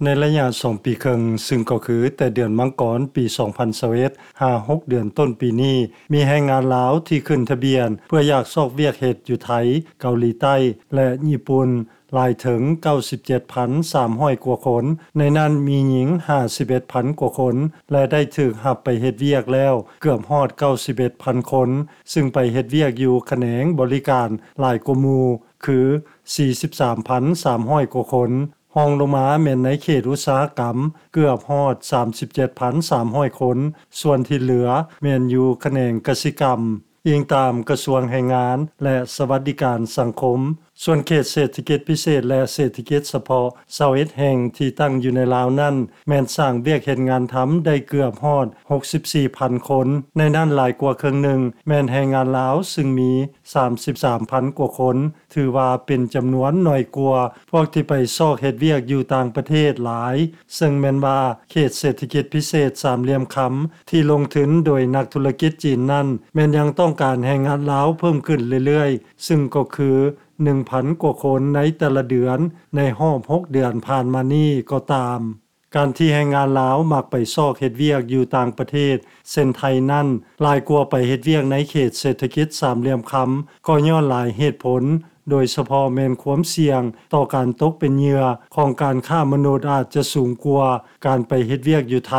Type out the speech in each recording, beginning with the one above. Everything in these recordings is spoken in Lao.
ໃນໄລຍະສອງປີເຄິ່ງ, ຊຶ່ງກໍຄືແຕ່ເດືອນມັງກອນປີສອງພັນຊາວເອັດ ຫາຫົກເດືອນຕົ້ນປີນີ້, ມີແຮງງານລາວທີ່ຂຶ້ນທະບຽນເພື່ອຢາກຊອກວຽກເຮັດຢູ່ໄທ, ເກົາຫຼີໃຕ້ ແລະ ຍີ່ປຸ່ນ ຫຼາຍເຖິງເກົ້າສິບເຈັດພັນສາມຮ້ອຍກວ່າຄົນ, ໃນນັ້ນມີຍິງຫ້າສິບເອັດພັນກວ່າຄົນ ແລະ ໄດ້ຖືກຮັບໄປເຮັດວຽກແລ້ວເກືອບຮອດເກົ້າສິບເອັດພັນຄົນ, ຊຶ່ງໄປເຮັດວຽກຢູ່ຂະແໜງບໍລິການຫຼາຍກວ່າໝູ່ ຄືສີ່ສິບສາມພັນສາມຮ້ອຍກວ່າຄົນ. ຮອງລົງມາແມ່ນໃນເຂດອຸດສາຫະກຳເກືອບຮອດສາມສິບເຈັດພັນສາມຮ້ອຍຄົນ, ສ່ວນທີ່ເຫຼືອແມ່ນຢູ່ຂະແໜງກະສິກຳ. ອີງຕາມກະຊວງແຮງງານ ແລະ ສະຫວັດດີການສັງຄົມ. ສ່ວນເຂດເສດຖະກິດພິເສດ ແລະ ເສດຖະກິດສະເພາະຊາວເອັດແຫ່ງທີ່ຕັ້ງຢູ່ໃນລາວນັ້ນ ແມ່ນສ້າງວຽກເຮັດງານທຳໄດ້ເກືອບຮອດຫົກສິບສີ່ພັນຄົນ, ໃນນັ້ນຫຼາຍກວ່າເຄິ່ງໜຶ່ງແມ່ນແຮງງານລາວ ຊຶ່ງມີສາມສິບສາມພັນກວ່າຄົນ, ຖືວ່າເປັນຈຳນວນໜ້ອຍກວ່າພວກທີ່ໄປຊອກເຮັດວຽກຢູ່ຕ່າງປະເທດຫຼາຍ, ເຊິ່ງແມ່ນວ່າເຂດເສດຖະກິດພິເສດສາມຫຼ່ຽມຄຳ ທີ່ລົງທຶນໂດຍນັກທຸລະກິດຈີນນັ້ນ ແມ່ນຍັງຕ້ອງການແຮງງານລາວເພີ່ມຂຶ້ນເລື້ອຍໆ, ຊຶ່ງກໍຄືໜຶ່ງພັນກວ່າຄົນໃນແຕ່ລະເດືອນ ໃນຮອບຫົກເດືອນຜ່ານມານີ້ກໍຕາມ. ການທີ່ແຮງງານລາວມັກໄປຊອກເຮັດວຽກຢູ່ຕ່າງປະເທດ ເຊັ່ນໄທນັ້ນ ຫຼາຍກວ່າໄປເຮັດວຽກໃນເຂດເສດຖະກິດສາມຫຼ່ຽມຄຳ ກໍຍ້ອນຫຼາຍເຫດຜົນ, ໂດຍສະເພາະແມ່ນຄວາມສ່ຽງຕໍ່ການຕົກເປັນເຫຍື່ອຂອງການຄ້າມະນຸດອາດຈະສູງກວ່າການໄປເຮັດວຽກຢູ່ໄທ,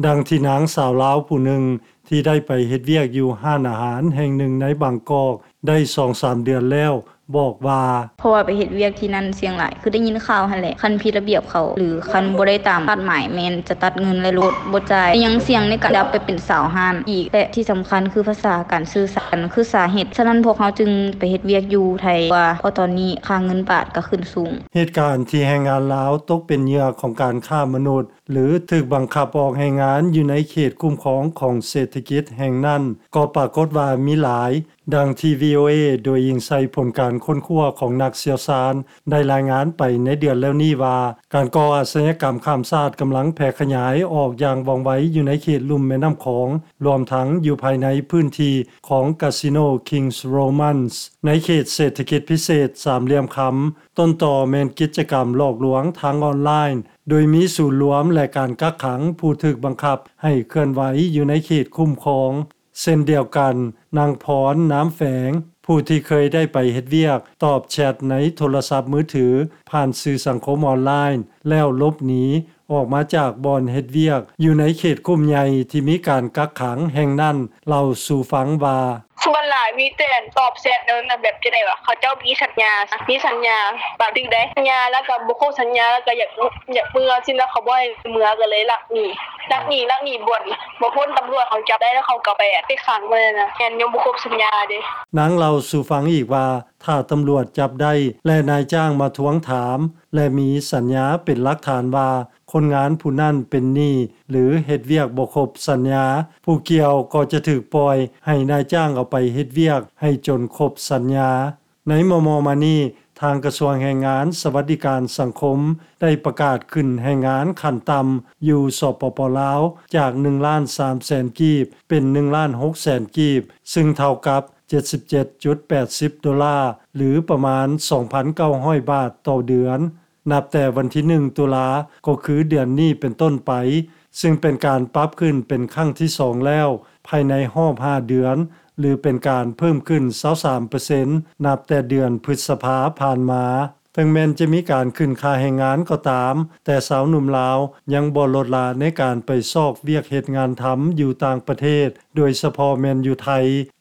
ດັ່ງທີ່ນາງສາວລາວຜູ້ໜຶ່ງ ທີ່ໄດ້ໄປເຮັດວຽກຢູ່ຮ້ານອາຫານແຫ່ງໜຶ່ງໃນບາງກອກໄດ້ສອງສາມເດືອນແລ້ວ ບອກວ່າ ເພາະວ່າໄປເຮັດວຽກທີ່ນັ້ນສ່ຽງຫຼາຍ ຄືໄດ້ຍິນຂ່າວຫັ້ນແຫຼະ, ຄັນຜິດລະບຽບເຂົາ ຫຼື ຄັນບໍ່ໄດ້ຕາມຄາດໝາຍ ແມ່ນຈະຕັດເງິນ ແລະ ລົດ ບໍ່ຈ່າຍ, ຍັງສ່ຽງໃນການໄດ້ໄປເປັນສາວຮ້ານອີກ ແລະ ທີ່ສຳຄັນຄືພາສາ ການສື່ສານ ຄືສາເຫດ. ສະນັ້ນພວກເຮົາຈຶ່ງໄປເຮັດວຽກຢູ່ໄທກວ່າ ເພາະຕອນນີ້ຄ່າເງິນບາດກໍຂຶ້ນສູງ. ເຫດການທີ່ແຮງງານລາວຕົກເປັນເຫຍື່ອຂອງການຄ້າມະນຸດ ຫຼື ຖືກບັງຄັບອອກແຮງງານຢູ່ໃນເຂດຄຸ້ມຄອງຂອງເສດຖະກິດແຫ່ງນັ້ນ ກໍປາກົດວ່າມີຫຼາຍ, ດັ່ງທີ່ ວີໂອເອ ໂດຍອີງໃສ່ຜົນການຄົ້ນຄວ້າຂອງນັກຊ່ຽວຊານ ໄດ້ລາຍງານໄປໃນເດືອນແລ້ວນີ້ວ່າ ການກໍ່ອາຊະຍາກຳຂ້າມຊາດກຳລັງແຜ່ຂະຫຍາຍອອກຢ່າງວ່ອງໄວຢູ່ໃນເຂດລຸ່ມແມ່ນ້ຳຂອງ, ລວມທັງຢູ່ພາຍໃນພື້ນທີ່ຂອງກາສິໂນ King's Romans ໃນເຂດເສດຖະກິດພິເສດສາມຫຼ່ຽມຄຳ. ຕົ້ນຕໍແມ່ນກິດຈະກຳຫຼອກລວງທາງອອນລາຍ, ໂດຍມີສູນລວມ ແລະ ການກັກຂັງຜູ້ຖືກບັງຄັບໃຫ້ເຄື່ອນໄຫວຢູ່ໃນເຂດຄຸ້ມຄອງ. ເຊັ່ນດຽວກັນ, ນາງ ພອນ ນາມແຝງ ຜູ້ທີ່ເຄີຍໄດ້ໄປເຮັດວຽກຕອບແຊັດໃນໂທລະສັບມືຖືຜ່ານສື່ສັງຄົມອອນລາຍ ແລ້ວຫຼົບໜີອອກມາຈາກບ່ອນເຮັດວຽກຢູ່ໃນເຂດຄຸ້ມໃຫຍ່ທີ່ມີການກັກຂັງແຫ່ງນັ້ນ ເລົ່າສູ່ຟັງວ່າ ສ່ວນຫຼາຍມີແຕ່ຕອບແຊັດນັ້ນນະ ແບບຈັ່ງໃດວະ ເຂົາເຈົ້າມີສັນຍາ ມີສັນຍາບາງທີໄດ້ ສັນຍາແລ້ວກໍບໍ່ຄົບສັນຍາ ແລ້ວກໍຢາກ ຢາກເມືອຊີ້ນະ ເຂົາບໍ່ໃຫ້ເມືອ ກໍເລີຍລັກໜີ ລັກໜີ ລັກໜີບ່ອນ ບໍ່ພົ້ນຕຳຫຼວດເຂົາຈັບໄດ້ ແລ້ວເຂົາກໍໄປ ໄປຂັງໄວ້ນະ ແມ່ນຍັງບໍ່ຄົບສັນຍາເດ້. ນາງເລົ່າສູ່ຟັງອີກວ່າ ຖ້າຕຳຫຼວດຈັບໄດ້ ແລະ ນາຍຈ້າງມາທວງຖາມ ແລະ ມີສັນຍາເປັນຫຼັກຖານວ່າ ຄົນງານຜູ້ນັ້ນເປັນໜີ້ ຫຼື ເຮັດວຽກບໍ່ຄົບສັນຍາ, ຜູ້ກ່ຽວກໍຈະຖືກປ່ອຍໃຫ້ນາຍຈ້າງເອົາໄປເຮັດວຽກໃຫ້ຈົນຄົບສັນຍາ. ໃນມໍ່ໆມານີ້, ທາງກະຊວງແຮງງານ ສະຫວັດດີການສັງຄົມ ໄດ້ປະກາດຂຶ້ນແຮງງານຂັ້ນຕ່ຳຢູ່ ສປປ ລາວ ຈາກໜຶ່ງລ້ານສາມແສນກີບ ເປັນໜຶ່ງລ້ານຫົກແສນກີບ, ຊຶ່ງເທົ່າກັບເຈັດສິບເຈັດຈຸດແປດສິບໂດລາ ຫຼື ປະມານສອງພັນເກົ້າຮ້ອຍບາດຕໍ່ເດືອນ. ນັບແຕ່ວັນທີໜຶ່ງຕຸລາ ກໍຄືເດືອນນີ້ເປັນຕົ້ນໄປ, ຊຶ່ງເປັນການປັບຂຶ້ນເປັນຄັ້ງທີສອງແລ້ວ ພາຍໃນຮອບຫ້າເດືອນ ຫຼື ເປັນການເພີ່ມຂຶ້ນຊາວສາມເປີເຊັນ ນັບແຕ່ເດືອນພຶດສະພາຜ່ານມາ. ເຖິງແມ່ນຈະມີການຂຶ້ນຄ່າແຮງງານກໍຕາມ, ແຕ່ຊາວໜຸ່ມລາວຍັງບໍ່ລົດລະໃນການໄປຊອກວຽກເຮັດງານທຳຢູ່ຕ່າງປະເທດ, ໂດຍສະເພາະແມ່ນຢູ່ໄທ,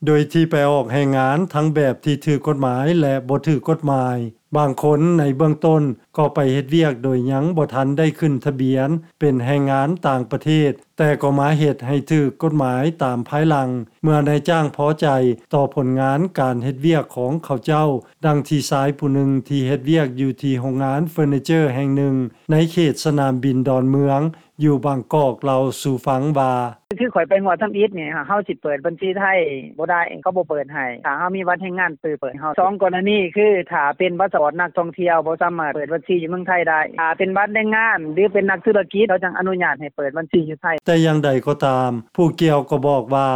ໂດຍທີ່ໄປອອກແຮງງານທັງແບບທີ່ຖືກກົດໝາຍ ແລະ ບໍ່ຖືກກົດໝາຍ. ບາງຄົນໃນເບື້ອງຕົ້ນກໍໄປເຮັດວຽກໂດຍຍັງບໍ່ທັນໄດ້ຂຶ້ນທະບຽນເປັນແຮງງານຕ່າງປະເທດ, ແຕ່ກໍມາເຮັດໃຫ້ຖືກກົດໝາຍຕາມພາຍຫຼັງ ເມື່ອນາຍຈ້າງພໍໃຈຕໍ່ຜົນງານການເຮັດວຽກຂອງເຂົາເຈົ້າ, ດັ່ງທີ່ຊາຍຜູ້ໜຶ່ງທີ່ເຮັດວຽກຢູ່ທີ່ໂຮງງານເຟີນີເຈີແຫ່ງໜຶ່ງໃນເຂດສະໜາມບິນດອນເມືອງ ຢູ່ບາງກອກ ເລົ່າສູ່ຟັງວ່າ ຄືຂ້ອຍໄປຮອດທຳອິດນີ້ ເຮົາຊິເປີດບັນຊີໄທບໍ່ໄດ້ ເຂົາບໍ່ເປີດໃຫ້ ຖ້າເຮົາມີບັດແຮງງານ ເປີດໃຫ້ເຮົາ. ສອງກໍລະນີ ຄືຖ້າເປັນພາສະປອດນັກທ່ອງທ່ຽວ ບໍ່ສາມາດເປີດບັນຊີຢູ່ເມືອງໄທໄດ້, ຖ້າເປັນບັດແຮງງານ ຫຼື ເປັນນັກທຸລະກິດ ເຂົາຈັ່ງອະນຸຍາດໃຫ້ເປີດບັນຊີຢູ່ໄທ. ແຕ່ຢ່າງໃດກໍຕາມ, ຜູ້ກ່ຽວກໍບອກວ່າ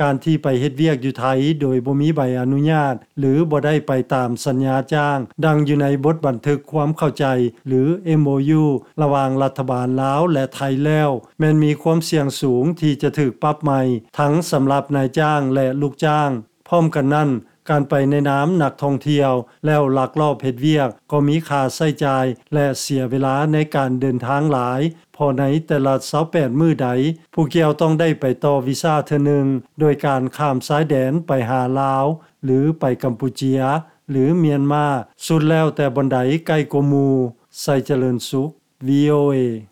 ການທີ່ໄປເຮັດວຽກຢູ່ໄທໂດຍບໍ່ມີໃບອະນຸຍາດ ຫຼື ບໍ່ໄດ້ໄປຕາມສັນຍາຈ້າງ ດັ່ງຢູ່ໃນບົດບັນທຶກຄວາມເຂົ້າໃຈ ຫຼື MOU ລະຫວ່າງລັດຖະບານລາວ ແລະ ໄທແລ້ວ ແມ່ນມີຄວາມສ່ຽງສູງທີ່ຈະຖືກປັບໃໝ ທັງສຳລັບນາຍຈ້າງ ແລະ ລູກຈ້າງ. ພ້ອມກັນນັ້ນ, ການໄປໃນນາມນັກທ່ອງທ່ຽວ ແລ້ວລັກລອບເຮັດວຽກ ກໍມີຄ່າໃຊ້ຈ່າຍ ແລະ ເສຍເວລາໃນການເດີນທາງຫຼາຍ, ເພາະໃນແຕ່ລະຊາວແປດມື້ໃດ, ຜູ້ກ່ຽວຕ້ອງໄດ້ໄປຕໍ່ວີຊາເທື່ອໜຶ່ງ ໂດຍການຂ້າມຊາຍແດນໄປຫາລາວ ຫຼື ໄປກຳປູເຈຍ ຫຼື ມຽນມາ, ສຸດແລ້ວແຕ່ບ່ອນໃດໃກ້ກວ່າໝູ່. ໄຊຈະເລີນສຸກ VOA.